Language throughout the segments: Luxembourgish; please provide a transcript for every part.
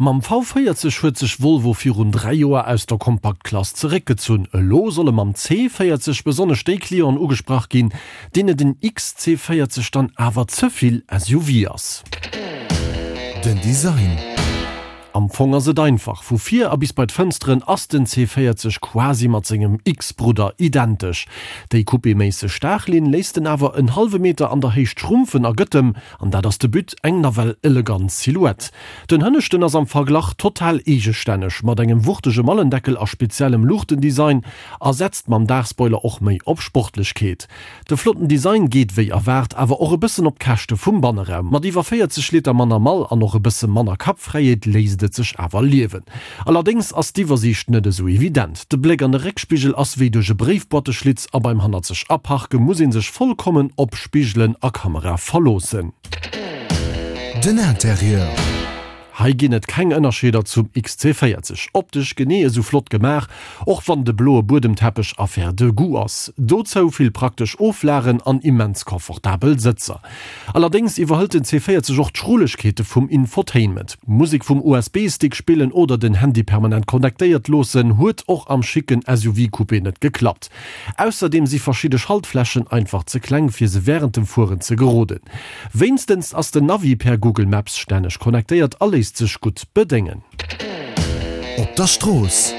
Mam V40 huet sech Volvo virun 3 Joer aus der Kompaktklass zeréckgezunn. Elo solle mam C40 besonnesch déi Clienten ugesprach ginn, deene den XC40 dann awer ze vill SUV ass. Den Design. Am Fong ass et einfach, vu vir a bis bei d'Fënsteren ass den C40 quasi mat sengem X-Brudder identesch. Déi coupéméisseg Daachlinn léisst en awer en hallwe Meter an der Héicht schrumpfen a gëtt em, an dat ass de But, eng nawell elegant Silhouette. Den Hënneschten ass am Verglach total eegestänneg, mat engem wuchtege Mallendeckel a speziellem Luuchtendesign a setzt mam Daachspoiler och méi op Sportlechkeet. De flotten Design geet wéi erwaart awer och e bëssen op d'Käschte vum Banneraum. Mat iwwer 40 Liter manner Mall an och e bësse manner Kappfräiheet léisst et sech awer liewen. Allerdéngs ass d'Iwwersiicht net esou evident. De Bléck an de Réckspigel ass wéi duerch e Bréifboîteschlitz a beim hannerzeg Aparke muss ee sech vollkommen op Spigelen a Kamera verloossen. Den Interieur. Hei ginn et keng Ënnerscheeder zum XC40. Optesch genee esou flott gemaach, och wann de bloe Buedemteppech Affaire de goût ass. Dozou vill praktesch Oflagen an immens confortabel Sëtzer. Allerdéngs iwwerhëlt den C40 och d'Schrullegkeete vum Infotainment. Musek vum USB-Stick spillen oder den Handy permanent connectéiert loossen huet och am schicken SUV-Coupé net geklappt. Ausserdeem si verschidde Schaltflächen einfach ze kleng fir se wärend dem Fueren ze geroden. Wéinstens ass den Navi per Google Maps stänneg connectéiert a léisst sech gutt bedéngen. Op der Strooss.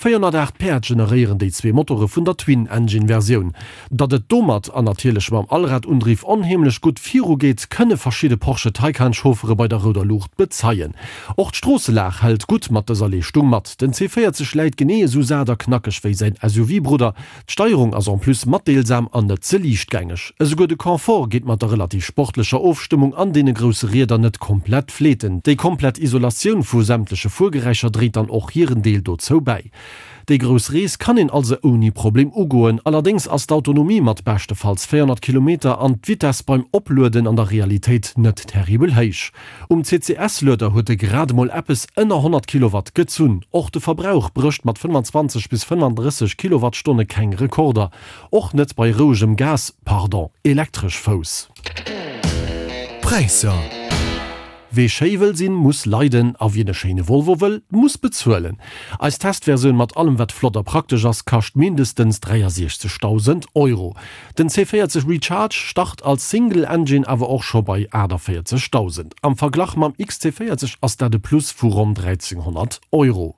408 Päerd generéieren déi zwee Motore vun der Twin-Engine-Versioun. Datt et domat, an natierlech mam Allradundriff, onheemlech gutt virugeet, kënne verschidde Porsche Taycan-Chauffere bei der rouder Luucht bezeien. Och d'Stroosselag hält gutt mat dëser Leeschtung mat. Den C40 läit genee esou sat a knackeg wéi säin SUV-Brudder. D'Steierung ass en plus matdeelsam an net ze liichtgängeg. Esouguer de Confort geet mat der relativ sportlecher Ofstëmmung an deene grousse Rieder net komplett fleeten. Déi komplett Isolatioun vu sämtleche Fuergeräischer dréit dann och hiren Deel dozou bäi. Déi grouss Rees kann een also ouni Problem ugoen. Allerdéngs ass d'Autonomie mat beschtefalls 400 Kilometer an d'Vitess beim Oplueden an der Realitéit net terribel héich. Um CCS-Lueder huet e grad emol eppes ënner 100 Kilowatt gezunn. Och de Verbrauch brécht mat 25 bis 35 Kilowattstonne keng Rekorder, och net bei rouegem Gas, pardon, Elektresch-Fouss. Präisser. Wee schéi wëll sinn, muss leiden a wien e schéine Volvo wëll, muss bezuelen. Eis Testversioun mat allem wat flott a praktesch ass, kascht mindestens 63.000 Euro. Den C40 Recharge start als Single Engine awer och scho bei 48.000. Am Verglach mam XC40 ass dat e Plus vu ronn 1.300 Euro.